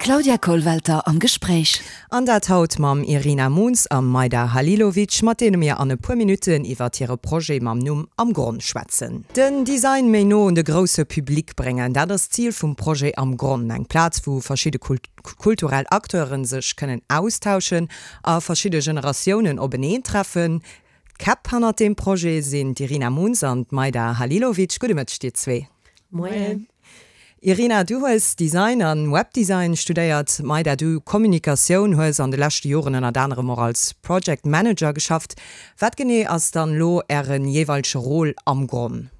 D'Claudia Kollwelter am Gespréich. An dat haut mam Irina Moons a Majda Halilovic, mat deene mir an e puer Minutten iwwert hire Projet mam Numm Am Gronn schwätzen. Den Design méi no un de grousse Public bréngen, dat ass d'Zil vum Projet Am Gronn. Eng Plaz, wou verschidde kulturell Acteure sech kënnen austauschen a verschidde Generatiounen openeentreffen. D'Käpp hannert deem Projet sinn d'Irina Moons an d'Majda Halilovic. Gudde Mëtteg dir zwee. Moien. Irina, du hues Design an Webdesign studéiert. Majda, du Kommunikatioun, hues an de leschte Joren ënnert anerem och als Project Manager geschafft. Wat genee ass dann elo äre jeeweilege Rôle am Gronn?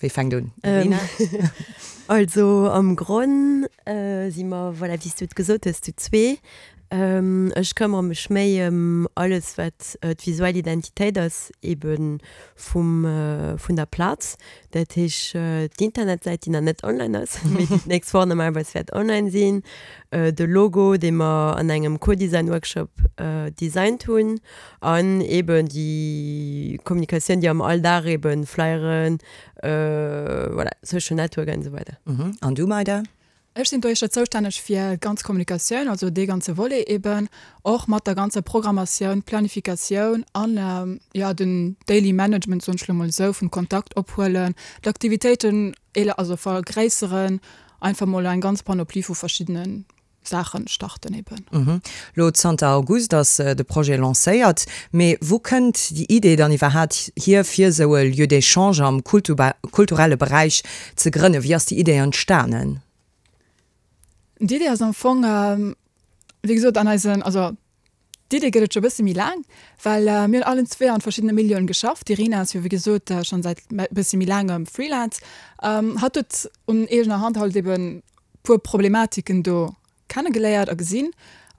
Wie fänkt un? Irina? Also am Gronn si mer, voilà, wéi s du et gesot hues, zu zwee. Ech këmmere mech méi ëm alles, wat d'visuell Identitéit ass, ebe vum, vun der Plaz. Dat heesch d'Internetsäit, déi nach net online ass, mee déi d'nächst Woch normalerweis wäert online sinn, de Logo, dee mer an engem Co-Design-Workshop designt hunn, An eben déi Kommunikatioun, déi am Alldag eben Flyeren, voilà, Social Network an esou weider. An du, Maida? Ech sinn dohicher zoustänneg fir d'ganz Kommunikatioun, also dee ganze Volet eben, och mat der ganzer Programmatioun, Planifikatioun an, jo, den Daily Management, soen ech elo mol esou, vum Kontakt ophuelen, d'Aktivitéiten, also vergréisseren, einfach mol eng ganz Panoplie vu verschiddene Saachen starten eben. Lo zanter August ass de Projet lancéiert, mee wou kënnt déi Idee dann iwwerhaat hier fir esou e Lieu d'échange am kulturelle Beräich ze grënnen? Wéi ass déi Idee entstanen? D'Idee ass am Fong wéi gesot an eisen, also D'Idee gëtt et scho bësse méi laang, well mir hunn allen zwee an verschiddene Milieuen geschafft. D'Irina ass jo wéi gesot schonn säit bësse méi laangem Freelance. Hatt huet un eegener Hand halt eben puer Problematiken do kennegeléiert a gesinn.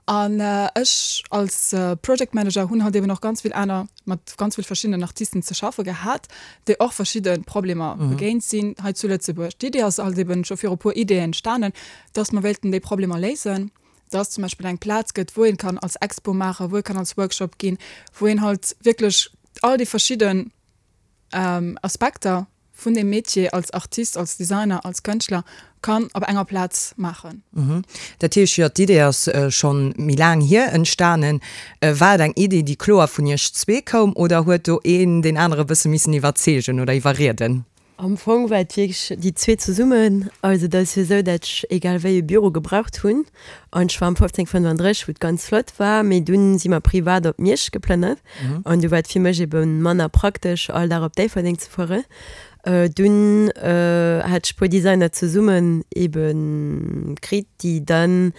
An ech als Project Manager hunn halt eben och ganz vill aner, mat ganz vill verschiddenen Artisten ze schaffe gehat, déi och verschidde Problemer begéint sinn hei zu Lëtzebuerg. D'Idee ass halt eben scho viru puer Ideeën entstanen, dass mer wéilten déi Problemer léisen. dass zum Beispill eng Plaz gëtt, wou een kann als Expo maachen, wou ee kann als Workshop ginn, wou een halt wierklech all déi verschidden Aspekter vun deem Metier als Artist, als Designer, als Kënschtler kann op enger Plaz maachen. Dat heescht, jo, d'Idee ass schonn méi laang hier entstanen. War et eng Idee, déi kloer vun iech zwee koum oder huet do een deen anere bësse missen iwwerzeegen oder iwwerrieden? Am Fong war et wierklech déi zwee zesummen. Also et ass jo esou, dat ech egal wéi e Büro gebraucht hunn. An ech war am 1535, wou et ganz flott war, mee dunn si mer privat op Miersch geplënnert. An du war et fir mech ebe manner praktesch, all Dag op Déifferdeng ze fueren. Dunn hat ech e puer Designer zesummen ebe kritt, déi dann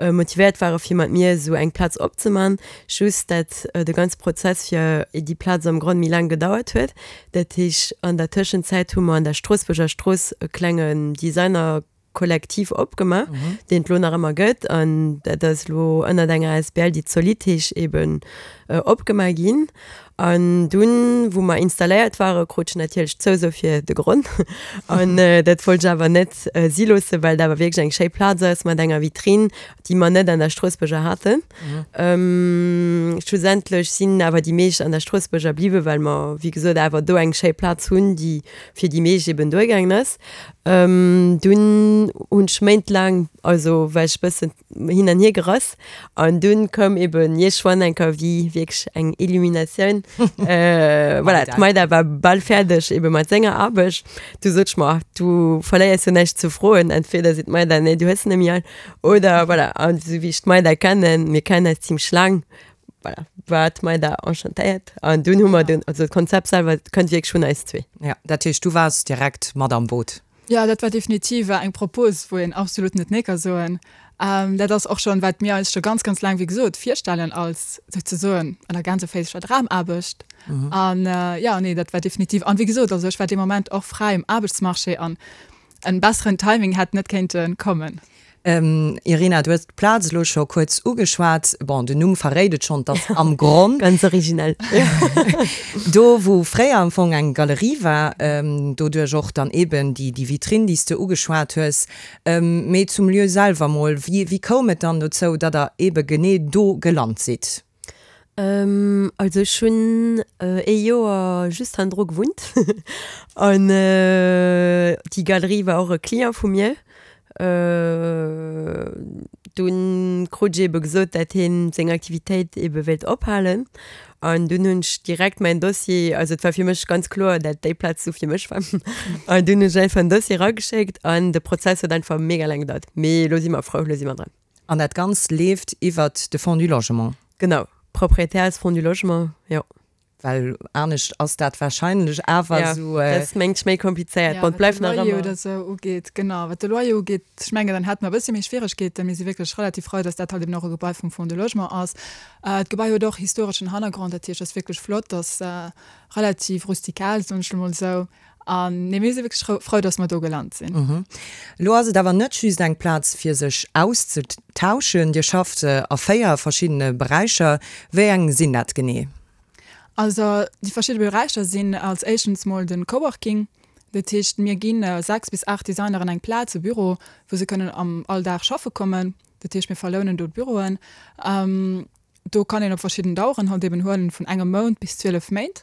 motivéiert ware fir mat mir esou eng Plaz opzeman. Just dat de ganze Prozess fir déi Plaz am Gronn méi laang gedauert huet. Dat heesch, an der Tëschenzäit hu mer an der Stroossbuerger Strooss e klengen Designerkollektiv opgemaach, deen et elo nach ëmmer gëtt. An dat ass elo ënnert enger asbl, déi Zolid heesch, eben opgemaach ginn. An dunn, wou mer installéiert waren, krut ech natierlech d'Zouso fir de Gronn. An dat wollt ech awer net si loossen, well et awer wierklech eng schéi Plaz ass mat enger Vitrinn, déi mer net an der Stroossbuerger haten. Schlussendlech sinn awer déi meescht an der Stroossbuerger bliwwen, well mer, wéi gesot, awer do eng schéi Plaz hunn, déi fir déi meescht eben duergaangen ass. Dunn hunn ech méintlaang, also war ech e bëssen hin an hier gerass an dunn koum eben iergendwann eng Kéier wéi wierklech eng Illuminatioun. Voilà, d'Maida war bal fäerdeg ebe mat senger Aarbecht. Du sot ech mer, du verléiers jo näischt ze froen, entweder seet d'Maida, nee, du hues se net méi all, Oder voilà, an esou wéi ech d'Maida kennen, mir kennen eis zimmlech laang, voilà, war d'Maida enchantéiert. An dunn hu mer dunn, also d'Konzept selwer kënnt wierklech vun eis zwee. Ja, dat heescht, du waars direkt mat am Boot? Jo, dat war definitiv eng Propos, wou een absolut net nee ka soen. Dat ass och schonn, wat mir eis scho ganz, ganz laang, wéi gesot, virstellen als souzesoen an der Gänseféischer Dramaarbecht. An jo, nee, dat war definitiv, an wéi gesot, also ech war dee Moment och fräi um Aarbechtsmarché an En besseren Timing hätt net kéinte kommen. Irina, du hues d'Plaz elo scho kuerz ugeschwat. Bon, den Numm verréit et schonn, et ass Am Gronn. Ganz originell. Do, wou fréier am Fong eng Galerie war, doduerch och dann eben déi Vitrinn, déi s de ugeschwat hues. Mee zum Lieu selwer mol, wéi koum et dann dozou, datt der ebe genee do gelant sidd? Also ech hunn ee Joer just hannendru gewunnt an déi Galerie war och e Client vu mir. Dunn krut ech ebe gesot, dat hien seng Aktivitéit ebe wéilt ophalen. An dunn hunn ech direkt mäin Dossier, also et war fir mech ganz kloer, dat déi Plaz du fir mech war. An dunn hunn ech einfach en Dossier erageschéckt an de Prozess huet einfach mega laang gedauert. Mee elo si mer frou, elo si mer dran. An dat Ganzt leeft iwwert de Fonds du Logement? Genau, Proprietär ass Fonds du Logement, jo. Well anescht ass dat wahrscheinlech awer esou. Ja, dat ass mengt ech méi komplizéiert. Bon, et bleift nach ëmmer. Wat de Loyer oder esou ugeet, genau, wat de Loyer ugeet, ech mengen, dann hätte mer e bëssi méi Schwieregkeeten. Mir si wierklech relativ frou, dass dat halt eben och e Gebai vum Fonds de Logement ass. D'Gebai huet och historeschen Hannergrond, dat heescht, ass wierklech flott, ass relativ rustikal, soen ech lo mol esou. An nee, mir si wierklech frou, dass mer do gelant sinn. Elo ass et awer net just eng Plaz fir sech auszetauschen. Dir schafft a 4 verschiddene Beräicher. Wéi eng sinn dat genee? Also déi verschidde Beräicher sinn als éischtens mol de Coworking. Dat heescht, mir gi 6 bis 8 Designeren eng Plaz, e Büro, wou se kënnen am Alldag schaffe kommen. Dat heescht, mir verlounen do d'Büroen. Do kann een op verschidden Daueren halt eben huelen, vun engem Mount bis 12 Méint.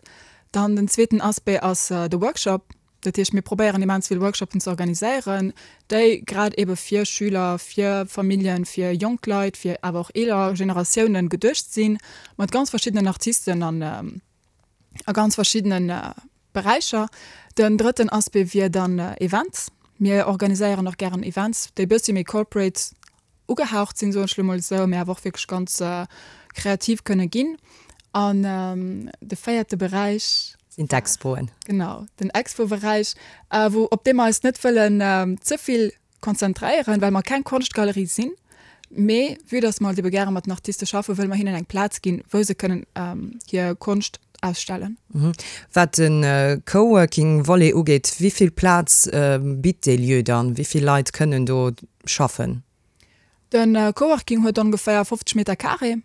Dann den zweeten Aspect ass de Workshop. Dat heescht, mir probéieren immens vill Workshoppen ze organiséieren, déi grad ebe fir Schüler, fir Familljen, fir jonk Leit, fir awer och eeler Generatiounen geduecht sinn, mat ganz verschiddenen Artisten an a ganz verschiddene Beräicher. Den drëtten Aspect wier dann Events. Mir organiséieren och gären Events, déi bëssi méi corporate ugehaucht sinn, soen ech elo mol esou, mä awer och wierklech ganz kreativ kënne ginn. An de véierte Beräich. Sinn d'Expoen. Genau, den Expo-Beräich, wou, op dee mer eis net wëllen ze vill konzentréieren, well mer keng Konschtgalerie sinn, mee vue dass mer halt ebe gäre mat den Artiste schaffen, wëlle mer hinnen eng Plaz ginn, wou se kënnen hir Konscht ausstellen. Wat de Coworking-Volet ugeet, wéi vill Plaz bitt dee Lieu dann? Wéi vill Leit kënnen do schaffen? De Coworking huet ongeféier 50 Meter carré.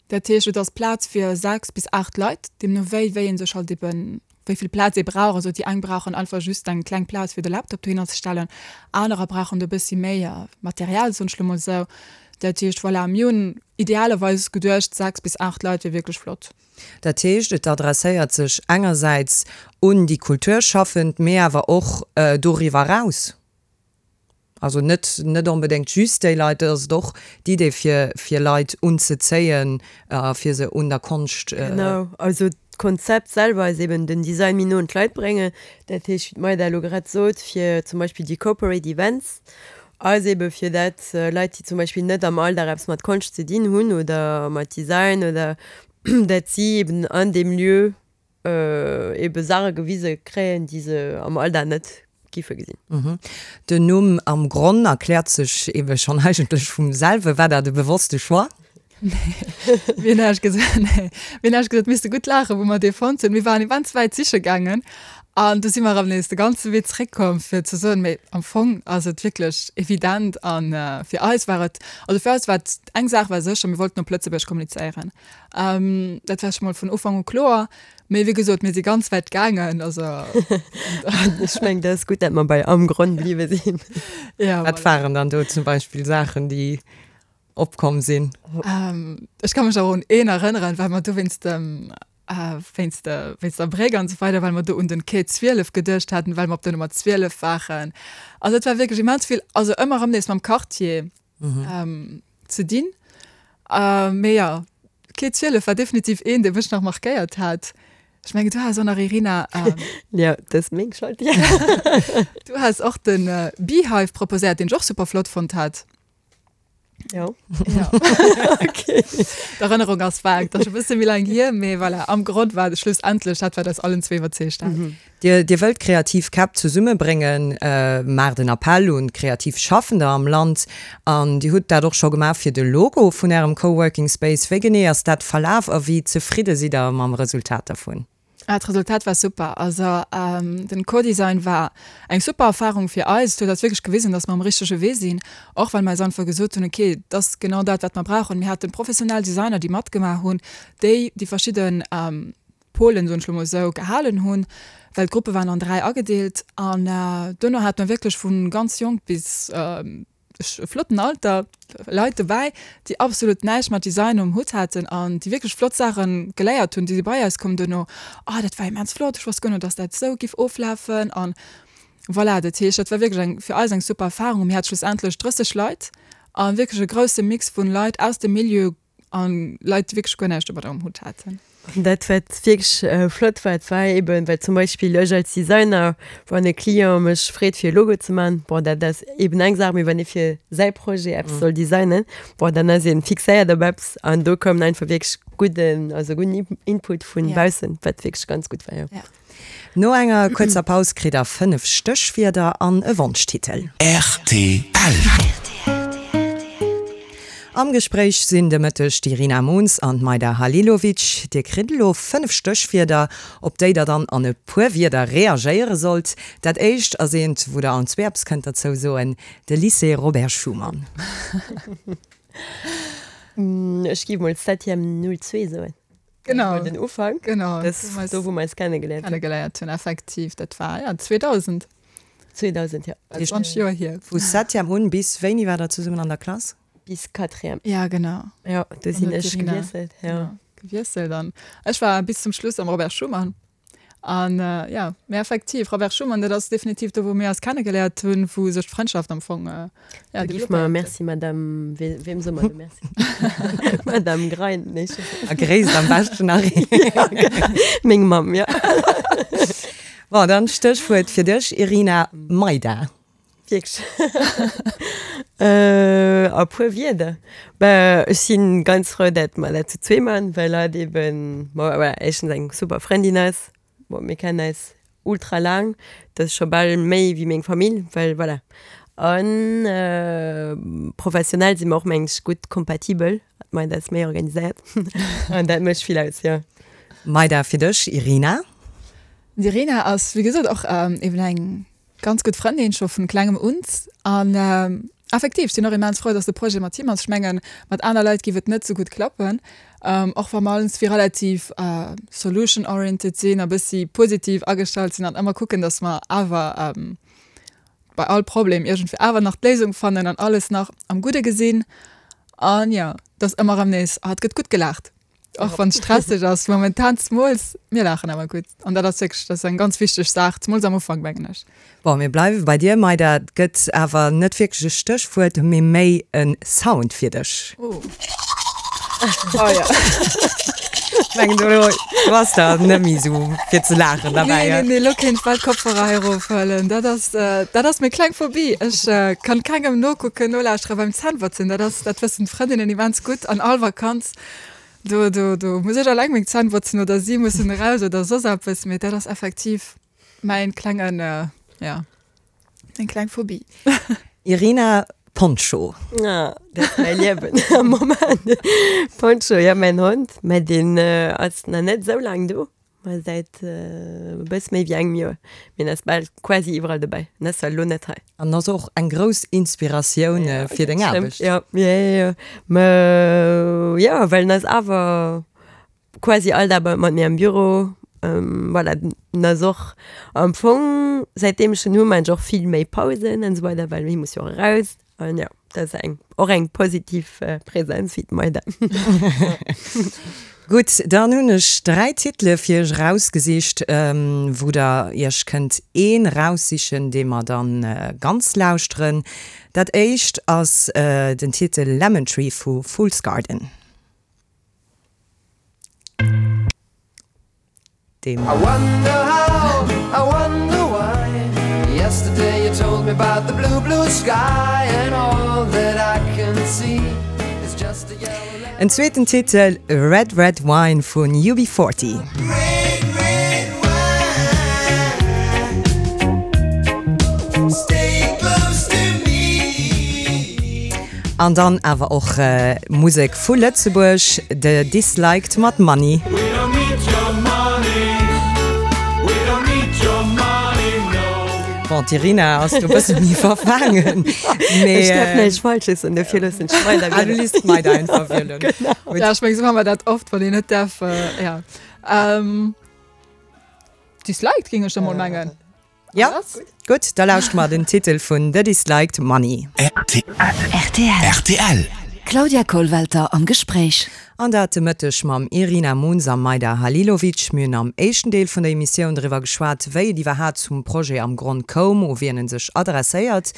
Dat heescht, et ass Plaz fir 6 bis 8 Leit, deemno wéi wéi ee sech halt eben, wéi vill Plaz ee brauch. Also déi eng brauchen einfach just eng kleng Plaz fir de Laptop dohinner ze stellen, anerer brauchen do e bëssi méi Material, soen ech lo mol esou. Dat heescht, voilà, mir hunn idealerweis geduecht, 6 bis 8 Leit wier wierklech flott. Dat heescht, et adresséiert sech engersäits un déi Kulturschaffend, mee awer och doriwwer eraus. Also net, net onbedéngt just déi Leit, et ass et och d'Idee fir, fir Leit unzezéien a fir se un der Konscht. Genau, also d'Konzept selwer ass eben den Design méi no un d'Leit bréngen. Dat heescht, wéi d'Maida elo grad sot, fir zum Beispill déi Corporate Events ass ebe fir dat Leit, déi zum Beispill net am Alldag eppes mat Konscht ze dinn hunn oder mat Design oder dat si eben an deem Lieu ebe Saache gewise kréien, déi se am Alldag net giffe gesinn. Den Numm Am Gronn erkläert sech ebe schonn eigentlech vum selwe. War dat e bewosste Choix? Nee, mir hunn ehrlech gesot, nee, mir hunn ehrlech gesot misste gutt laachen, wou mer dee fonnt hunn. Mir waren immens wäit siche gaangen an du si mer erëm nees de ganze Wee zeréckkomm, fir ze soen, mee am Fong ass et wierklech evident an fir eis war et, also fir eis war et, eng Saach war sécher, mir wollten op Lëtzebuerg kommunizéieren. Dat war scho mol vun Ufank u kloer. Mee wéi gesot, mir si ganz wäit gaangen, also. Ech mengen, dat ass gutt, dat mer bei am Gronn bliwwe sinn. Ja, Wat waren dann do zum Beispill Saachen, déi opkomm sinn? Ech ka mech awer un een erënneren, well mer do wéinst dem, wéinst de, wéinst der Bréck an esou weider, well mer do un den Quai 12 geduecht haten, well mer op der Nummer 12 waren. Also et war wierklech immens vill, also ëmmer erëm nees mam Quartier. ze dinn. Mee jo, Quai 12 war definitiv een, dee mech nach markéiert hat. Ech mengen, du has och nach, Irina. Jo, dat ass meng Schold, jo. Du has och de Beehive proposéiert, deen ech och super flott fonnt hat. Jo. Jo. Okay. D'Erënnerung ass vag, dat ass scho e bësse méi laang hier, mee voilà, am Grond war et schlussendlech dat, wat eis allen zwee iwwerzeegt hat. Dir, Dir wëllt kreativ Käpp zesummebréngen, maacht en Appell un kreativ Schaffender am Land an Dir hutt dat och scho gemaach fir de Logo vun Ärem Coworking Space. Wéi genee ass dat verlaf a wéi zefridde sidd Der mam Resultat dervun? Ah, d'Resultat war super. Also den Co-Design war eng super Erfahrung fir eis. Et huet eis wierklech gewisen, dass mer um richtege Wee sinn, och well mer eis einfach gesot hunn, okay, et ass genau dat, wat mer brauchen. Mir haten professionell Designer, déi matgemaach hunn, déi déi verschidden Polen, soen ech lo mol esou, gehalen hunn, well d'Gruppe waren an 3 agedeelt an duerno hate mer wierklech vu ganz jonk bis e flotten Alter Leit dobäi, déi absolut näischt mat Design um Hutt haten an déi wierklech flott Saache geléiert hunn, déi si bei eis komm duerno, oh dat war immens flott, ech wosst guer net, dass dat esou giff oflafen an. Voilà, dat heescht, dat war wierklech eng, fir eis eng super Erfahrung. Mir hate schlussendlech 30 Leit a wierklech e grousse Mix vun Leit aus dem Milieu a Leit, déi wierklech guer näischt domadder um Hutt haten. An dat, wat wierklech flott war, dat war eeben, well zum Beispill ech als Designer, wann e Client mech freet, fir e Logo ze maachen, bon, dat ass eeben eng Saach, mee wann ee fir säi Projet eppes soll designen, bon, dann ass ee fixéiert op eppes an do koum einfach wierklech gudden, also gudden Input vu baussen, wat wierklech ganz gutt war, jo. No enger kuerzer Paus kritt der 5 Stéchwierder an e Wonschtitel. Rtl. Am Gespréich sinn de Mëtteg d'Irina Moons an d'Majda Halilovic. Dir kritt elo 5 Stéchwierder, op déi der dann an e puer Wierder reagéiere sollt. Dat éischt ass eent, wou der allen zwee eppes kënnt derzou soen, de Lycée Robert Schuman. Ech géif mol Septième 02 soen. Genau. Den Ufank. Genau. Das, do, wou mer eis kennegeléiert hunn. Kennegeléiert hunn, effektiv. Dat war, ja, 2000. 2000, ja. 20 Joer hier. Vu Septième un bis wéini war der zesummen an der Klass? Bis Quatrième. Ja, genau. Ja, do sinn ech gewiesselt, ja. Genau, gewiesselt an ech war bis zum Schluss am Robert Schuman. An jo, mee effektiv, Robert Schuman, dat ass definitiv do, wou mir eis kennegeléiert hunn, wou sech d'Frëndschaft am Fong, jo, Da giff mer Merci, Madame, weem soe mer do Merci? Madame Grein, nee, ech weess net. A gréisst am beschten nach een. Ja, genau, meng Mamm, jo. Bon, dann Stéchwuert fir dech, Irina, Maida. Wierklech? A puer Wierder? Bah, ech si ganz frou, dat mer dat zu zwee man, well hatt eben, bon, voilà, éischtens eng super Frëndin ass. Bon, mir kennen eis ultra laang, dat ass scho bal méi wéi meng Famill, well voilà. An professionell si mer och, mengen ech, gutt kompatibel. D'Maida ass méi organiséiert an dat mécht vill aus, jo. Maida, fir dech, Irina? D'Irina ass, wéi gesot, och eben eng Ganz gutt Frëndin scho vun klengem un an effektiv sinn och immens frou, dass de Projet mat him ass. Ech mengen mat aner Leit giff et net sou gutt klappen, och wa mer allenzwee relativ solution oriented sinn a bëssi positiv agestallt sinn an ëmmer kucken, dass mer awer bei all Problem iergendwéi awer nach d'Léisung fannen an alles nach am Gudde gesinn an jo, dass ëmmer erëm nees, ah et gëtt gutt gelaacht. Och wann et stresseg ass momentan, zemools mir laachen awer gutt an dat ass wierklech, dat ass eng ganz wichteg Saach, zemools am Ufank mengen ech. Bon, mir bleiwe bei dir, Maida. Et gëtt awer net wierklech e Stéchwuert, mee méi e Sound fir dech. Oh. Oh ja. Ech mengen do do ass der net méi esou fir ze laachen derbäi. Nee, nee, nee, elo kéint ech bal d'Kopfhörer hei erofhuelen. Dat ass, dat ass meng kleng Phobie. Ech kann kengem nokucken, nolauschteren beim Zännbotzen. Dat ass, dat wëssen d'Frëndinnen immens gutt an all Vakanz. Do, do, do muss ech alleng meng Zänn botzen oder si mussen eraus oder soss eppes, mee dat ass effektiv mäin klengen, ja, meng kleng Phobie. Irina, Poncho. Ah, dat ass mäi Liewen am Moment. Poncho, ja, mäin Hond, mä deen ass nach net esou laang do. Ma säit e bëss méi wéi engem Joer. Mee en ass bal quasi iwwerall dobäi. En ass zwar elo net hei. An ass och eng grouss Inspiratioun fir deng Aarbecht. Jo, jo, jo, jo. Mä jo, well en ass awer quasi all Dag mat mir am Büro. Voilà, en ass och am Fong, säitdeem ech en hu, maan ech och vill méi Pausen an esou weider, well hie muss jo och eraus. An jo, dat ass eng, och eng positiv Präsenz wéi d'Maida. Gutt, dann hunn ech 3 Titele fir iech erausgesicht, wou der iech kënnt een eraussichen, dee mer dann ganz lauschteren. Dat éischt ass den Titel Lemon Tree vu Fool's Garden. Deem. En zweeten Titel, Red Red Wine vun UB40. An dann awer och Musek vu Lëtzebuerg, The Disliked mat Money. Bon, d'Irina ass do e bësse méi verfaangen, mee. Ech däerf näischt Falsches soen, dofir loossen ech d'Maida wielen. Ah, du lies d'Maida einfach wielen. Genau. Ja, ech meng, esou hu mer dat oft, wann een net däerf, ja. Disliked, géing ech da mol mengen. Ja, gutt, da lauschte mer den Titel vun The Disliked, Money. Rtl. D'Claudia Kollwelter am Gespréich. An dat de Mëtteg mam Irina Munz a Majda Halilovic. Mir hunn am éischten Deel vun der Emissioun driwwer geschwat, wéi et iwwerhaat zum Projet am Gronn koum, u wien en sech adresséiert.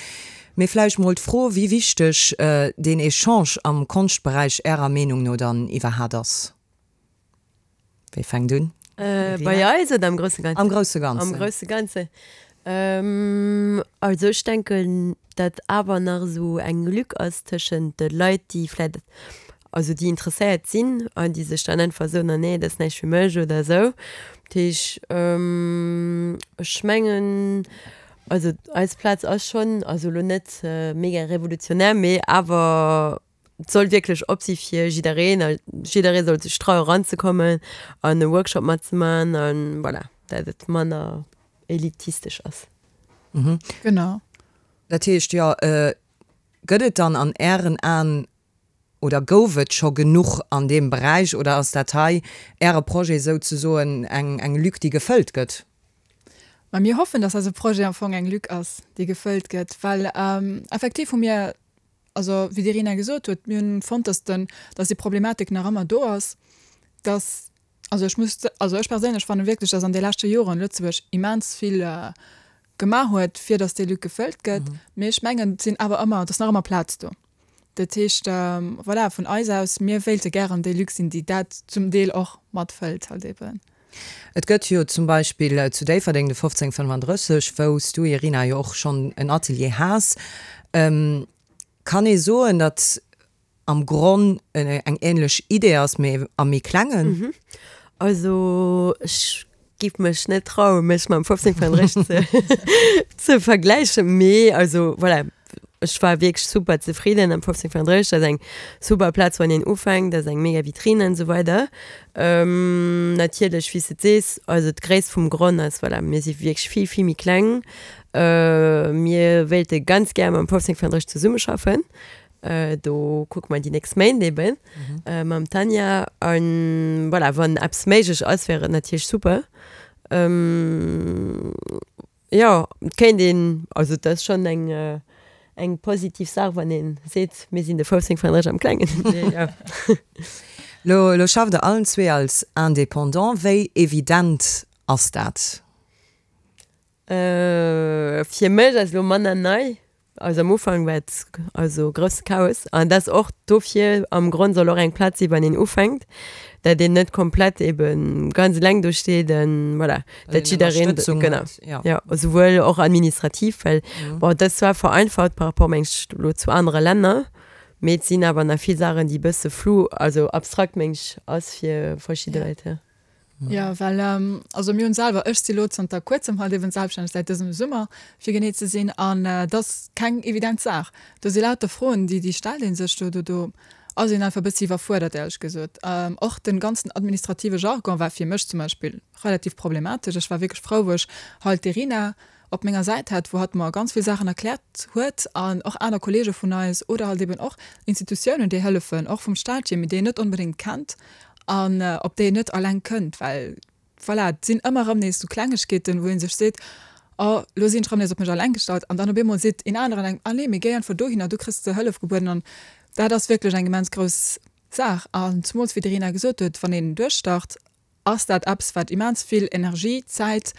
Mee vläicht mol d'Fro, wéi wichteg deen Echange am Konschtberäich Ärer Meenung no dann iwwerhaat ass? Wie fänkt un? Bei eis oder am grousse Ganzen? Am grousse Ganzen. Am grousse Ganzen. Also ech denken, datt awer nach esou eng Lück ass tëschent de Leit, déi vläicht, also déi interesséiert sinn an déi sech dann einfach soen, ah nee, dat ass näischt fir mech oder esou. Dat heesch, ech mengen, also eis Plaz ass schonn, also elo net mega revolutionär, mee awer Et soll wierklech op si fir jiddereen a jidderee soll sech traue eranzekommen an e Workshop matzemaachen a voilà, dat et manner elitistesch ass. Genau. Dat heescht, jo, gëtt et dann an Ären Aen oder gouf et scho genuch an deem Beräich oder ass dat hei, Äre Projet souzesoen, eng eng Lück, déi gefëllt gëtt? Ma mir hoffen, dass eise Projet am Fong eng Lück ass, déi gefëllt gëtt, well effektiv hu mir Also, wéi d'Irina gesot huet, mir hunn fonnt, dass den, dass déi Problematik nach ëmmer do ass, dass, also ech muss, also ech perséinlech fanne wierklech, dass an de leschte Joren Lëtzebuerg immens vill gemaach huet, fir dass déi Lück gefëllt gëtt. Mee ech mengen, et sinn awer ëmmer, et ass nach ëmmer Plaz do. Dat heescht, voilà, vun eis aus, mir wéilte gären déi Lück sinn, déi dat zum Deel och matfëllt halt eben. Et gëtt jo zum Beispill zu Déifferdeng de 1535, wou s du, Irina, jo och schonn en Atelier has. Kann ee soen, datt am Gronn eng änlech Idee ass, mee am méi klengen? Also ech giff mech net trauen, mech mam 1535 ze ze vergläichen, mee also voilà, Ech war wierklech super zefridden am 1535, dat ass eng super Plaz wann een ufänkt, dat ass eng mega Vitrine an esou weider. Natierlech wéi s de et sees, also d'Gréisst vum Gronn ass, voilà, mir si wierklech vill vill méi kleng. Mir wéilte ganz gär mam 1535 zesummeschaffen, do kucke mer déi nächst Méint eben mam Tanja an voilà, wann eppes méiglech ass, wär et natierlech super. Jo, et kéint een, also et ass schonn eng eng positiv Saach, wann ee seet, mir sinn de 1535 am Klengen. Mee jo. Lo lo schafft Der allen zwee als Indépendant. Wéi evident ass dat? Fir mech ass elo manner nei. Also am Ufank war et also grousse Chaos an dat ass och dofir, am Grond soll och eng Plaz si wann een ufänkt, dat een net komplett eben ganz eleng do steet an voilà, dat jiddereen, genau, jo, esouwuel och administrativ, well bon dat ass zwar vereinfacht par rapport meng ech elo zu anere Länner, mee et sinn awer nach vill Saachen déi e bësse flou, also abstrakt meng ech ass fir verschidde Leit, jo. Jo, well also mir hunn selwer, ech si lo zanter kuerzem halt eben selbststänneg, säit dësem Summer fir genee ze sinn, an et ass keng evident Saach. Do si lauter Froen, déi déi stellt ee sech do, do do ass een einfach e bëssi iwwerfuerdert éierlech gesot. Och den ganzen administrative Jargon war fir mech zum Beispill relativ problematesch. Ech war wierklech frou wou ech halt d'Irina op menger Säit hat, wou hatt mer ganz vill Saachen erkläert huet an och aner Kollege vun eis oder halt eben och Institutiounen, déi hëllefen, och vum Staat hier, mee déi een net onbedéngt kennt an op déi een net alleng kënnt, well voilà, et sinn ëmmer erëm nees sou Klengegkeeten, wou ee sech seet, oh lo sinn ech erëm nees op mech alleng gestallt an dann op eemol seet een aneren engem, ah nee, mee géi einfach dohinner, do kriss de Hëllef gebueden an dat ass wierklech eng immens grouss Saach an zemools wéi d'Irina gesot huet, wann een duerchstart, ass dat eppes, wat immens vill Energie, Zäit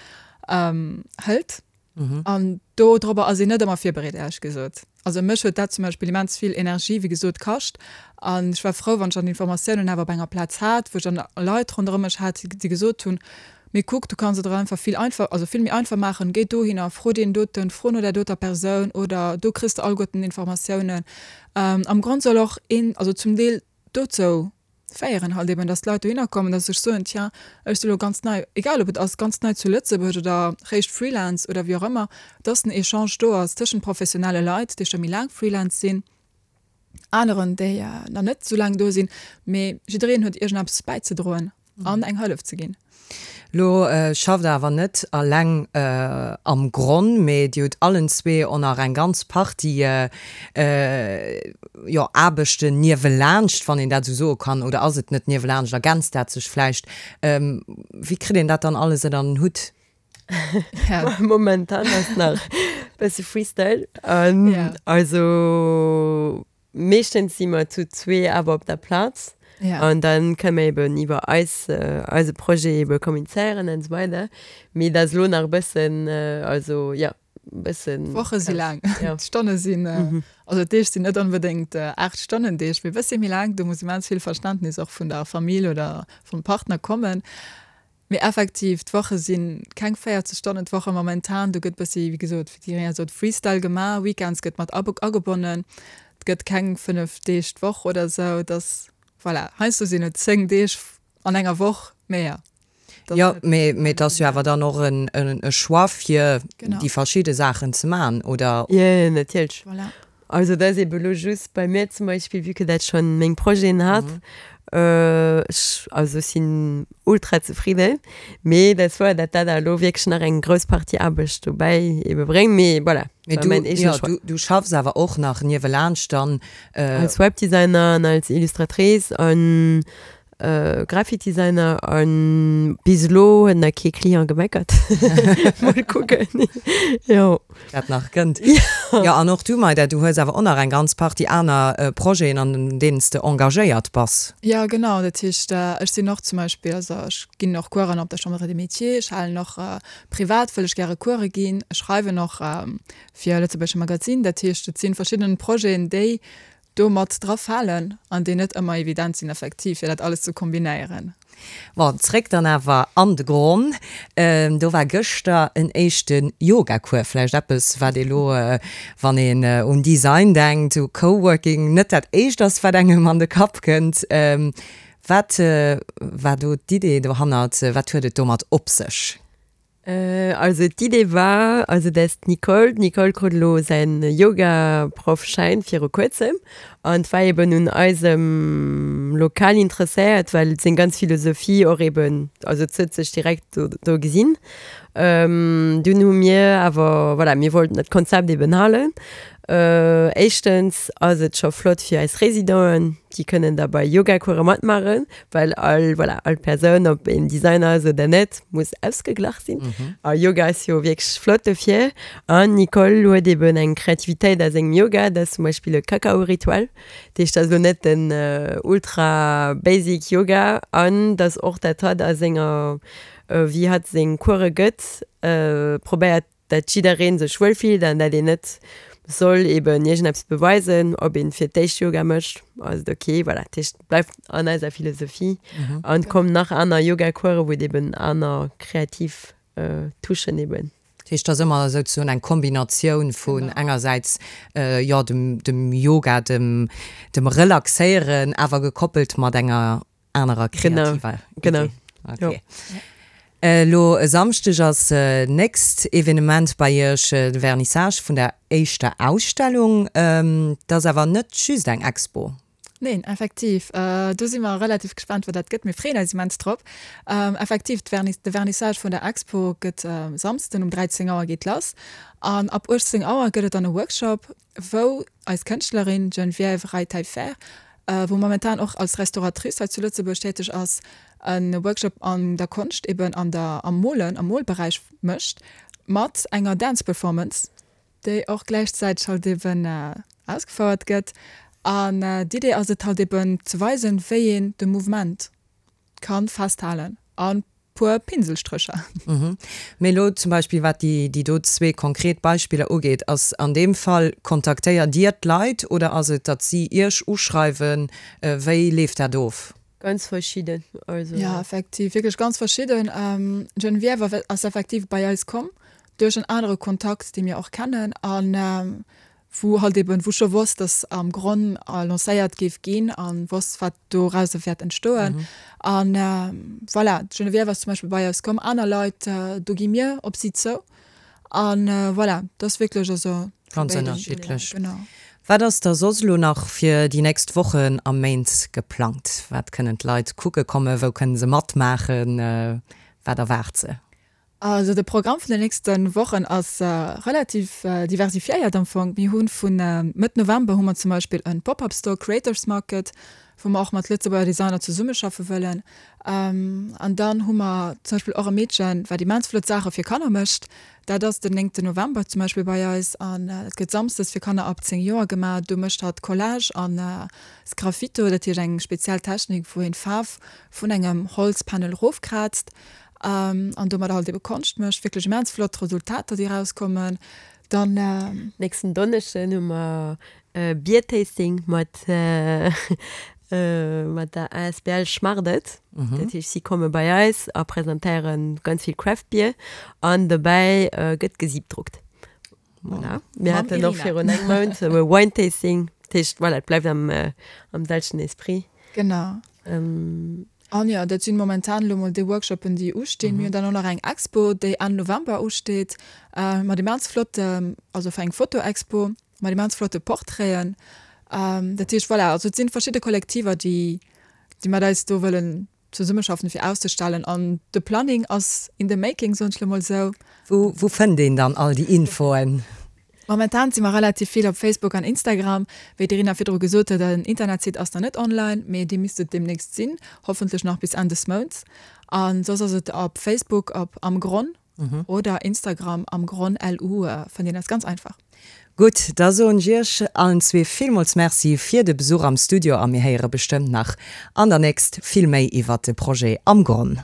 hëlt. An dodrobber ass een net ëmmer virbereet, éierlech gesot. Also mech huet dat zum Beispill immens vill Energie, wéi gesot, kascht. An ech war frou, wann ech dann d'Informatiounen awer op enger Plaz hat, wou ech dann Leit ronderëm mech hat, déi gesot hunn, Mee kuck, du kanns et der einfach vill einfach, also vill méi einfach maachen, géi dohinner, fro deen doten, fro no där doter Persoun oder do kriss de alleguerten Informatiounen. Am Grond soll och een, also zum Deel dozou féieren halt eben, dass d'Leit dohinner kommen, dass se sech soen, tiens, ech si lo ganz nei, egal ob et ass ganz nei zu Lëtzebuerg oder réischt Freelance oder wéi och ëmmer, dass den Echange do ass tëschent professionelle Leit, déi scho méi laang Freelance sinn, aneren, déi nach net esou laang do sinn, mee jiddereen huet iergendeppes bäizedroen an eng Hëllef ze ginn. Lo schafft der awer net alleng am Gronn, mee dir hutt allen zwee och nach eng ganz Partie, jo, Aarbechten niewelaanscht, wann een dat esou soe kann. Oder ass et net niewelaanscht, ergänzt dat sech vläicht? Wéi kritt een dat dann alles ënner den Hutt? Momentan ass nach e bësse Freestyle. Also. Meeschtens si mer zu zwee awer op der Plaz. Ja. An dann kënne mer eben iwwer eis, eise Projet ebe kommunizéieren an esou weider. Mee dat ass elo nach e bëssen, also jo, e bëssen. D'Woche si laang, Ja. d'Stonne sinn, also d'Deeg sinn net onbedéngt 8 Stonnen Deeg, mee e bëssi méi laang. Do muss immens vill Verständnis och vun der Famill oder vum Partner kommen. Mee effektiv, d'Woche si keng 40 Stonnen d'Woche momentan. Do gëtt bëssi, wéi gesot, wéi d'Irina sot, Freestyle gemaach. Weekends gëtt mat agebonnen. Et gëtt keng 5 Deeg d'Woch oder esou. Et ass, voilà, heiansdo sinn et 10 Deeg an enger Woch, mee jo. Jo, mee et ass jo awer dann och e Choix, fir déi verschidde Saachen ze maachen, oder? Jo, natierlech. Voilà. Also dat ass ebe lo just bei mir zum Beispill, vue que dat schonn meng Projeten hat, ech, also ech sinn ultra zefridden, mee dat ass wouer, dat dat elo wierklech nach eng grouss Partie Aarbecht dobäi ebe bréngt, mee voilà, Mee war du, mäin eegene jo, Choix. du, du schaffs awer och nach niewelaanscht dann. Als Webdesigner an als Illustratrice an Graphic Designer an bis elo huet nach kee Client gemeckert. Mol kucken, jo. Wat nach kënnt. Jo, an och du, Maida, du hues awer och nach eng ganz Partie aner Projeten, an deenen s de engagéiert bass. Jo, genau. Dat heescht, ech sinn och zum Beispill, also ech ginn och Coursen op der Chambre des Métiers, ech halen och privat wëll ech gäre Course ginn, ech schreiwen och fir e lëtzebuergesche Magazin. Dat heescht, et si verschidden Projeten, déi do mat dra falen an déi net ëmmer evident sinn effektiv, fir dat alles ze kombinéieren. Bon, zréck dann awer an de Gronn. Do war gëschter en éischte Yoga-Cours. Vläicht eppes, wat ee lo, wann een un Design denkt, u Coworking, net dat éischt ass, wat engem an de Kapp kënnt. Wat war do d'Idee dohannert? Wat huet et domat op sech? Also d'Idee war, also dass d'Nicole, d'Nicole krut elo säin Yoga-Proff-Schäin viru kuerzem an war eben un eisem Lokal interesséiert, well seng ganz Philosophie och eben, also s'huet sech direkt do do gesinn. Dunn hu mir awer, voilà, mir wollten dat Konzept eben halen. Éischtens ass et scho flott fir eis Residenten, déi kënnen da bei Yoga-Course matmaachen, well all, voilà, all Persoun, ob een Designer ass oder net, muss ausgeglach sinn. A Yoga ass jo wierklech flott dofir. An d'Nicole huet eben eng Kreativitéit a sengem Yoga, dat ass zum Beispill e Kakao-Ritual. Dat heescht, dat ass elo net den ultra basic Yoga. An dass och dat hatt a senger, wéi hatt seng Course gëtt, probéiert dat jiddereen sech wuel fillt an dat een net soll eben iergendeppes beweisen, ob een fir d'éischt Yoga mécht, ass et ok. Voilà, dat heescht, et bleift an eiser Philosophie an et kommen nach aner Yoga-Coursen, wou et eben aner kreativ Touchen eben. Dat heescht, et ass ëmmer souzesoen eng Kombinatioun vun engersäits, jo, dem, dem Yoga, dem, dem Relaxéieren, awer gekoppelt mat enger anerer kreativer Genau, Idee. genau. Okay. Elo e Samschdeg ass nächst Evenement bei Iech, de Vernissage vun der éischter Ausstellung. Dat ass awer net just eng Expo. Neen, effektiv. Do si mer relativ gespaant, wat dat gëtt. Mir freeën eis immens drop. Effektiv, de Vernissage vun der Expo gëtt e Samsden um 13 Auer geet lass. An ab 18 Auer gëtt et dann e Workshop, wou eis Kënschtlerin Geneviève Rey-Taillefer, wou momentan och als Restauratrice hei zu Lëtzebuerg täteg ass, e Workshop an der Konscht, eben an der, am Molen, am Molberäich mécht, mat enger Dance Performance, déi och gläichzäiteg halt eben ausgefouert gëtt. An d'Idee ass et halt eben ze weisen, wéi een de Mouvement ka festhalen a puer Pinselstrécher. Mee elo zum Beispill wat déi do zwee konkret Beispiller ugeet, ass an deem Fall, kontaktéiert Dir d'Leit oder ass et, datt si Iech uschreiwen? Wéi leeft dat of? Ganz verschidden, also. Jo, effektiv, wierklech ganz verschidden. D'Geneviève ass effektiv bei eis komm duerch en anere Kontakt, dee mir och kennen an wou halt eben, wou scho wosst, dass am Gronn lancéiert géif ginn a wosst, wat dorauser wäert entstoen. An voilà, d'Geneviève ass zum Beispill bei eis komm, aner Leit, do gi mir op si zou. A voilà, dat ass wierklech also vu Ganz béiden. ënnerschiddlech. Genau. Wat ass da soss elo nach fir déi nächst Wochen a Méint geplangt? Wat kënnen d'Leit kucke kommen? Wou kënne se matmaachen? Wat erwaart se? Also de Programm vun den nächste Wochen ass relativ diversifiéiert am Fong. Mir hu vu Mëtt November hu mer zum Beispill e Pop-up Store Creators Market. wou mer och mat Lëtzebuerger Designer zesummeschaffe wëllen. An dann hu mer zum Beispill och e Meedchen, wat immens flott Saache fir Kanner mécht. Dat ass den néngten November zum Beispill bei eis an dat gëtt samsdes fir Kanner ab 10 Joer gemaach. Do mécht hatt Collage an Sgraffito, dat heescht eng speziell Technik, wou een d'Faarf vun engem Holzpanel erofkraazt an domadder halt ebe Konscht mécht. Wierklech immens flott Resultater, déi erauskommen. Dann. Nächsten Donneschden hu mer e Biertasting mat mat der asbl Schmardet. Dat heescht, si komme bei eis a presentéiere ganz vill Craft Beer an dobäi gëtt gesiebdruckt. Voilà. Mir haten och virun engem Mount e Wine Tasting. Dat heescht, voilà, et bleift am am selwechten Esprit. Genau. An jo, dat sinn momentan elo mol déi Workshoppen, déi ustinn. Mir hunn dann och nach eng Expo, déi Enn November usteet, mat immens flotte, also fir eng Fotoexpo mat immens flotte Portraiten. Dat heescht, voilà, also et sinn verschidde Kollektiver, déi, déi mat eis do wëllen zesummeschaffen, fir auszestellen. An de Planning ass in the making, soen ech elo mol esou. Wou, wou fënnt een dann all déi Infoen? Momentan si mer relativ vill op Facebook an Instagram. Wéi d'Irina virdru gesot huet, en Internetsite ass nach net online, mee dee misst et deemnächst sinn, hoffentlech nach bis Enn des Mounts. A soss ass et op Facebook op Am Gronn oder Instagram Am Gronn LU fënnt een eis ganz einfach. Gutt, da soen ech Iech allen zwee villmools Merci fir de Besuch am Studio a mir héiere bestëmmt nach an der nächst vill méi iwwert de Projet Am Gronn.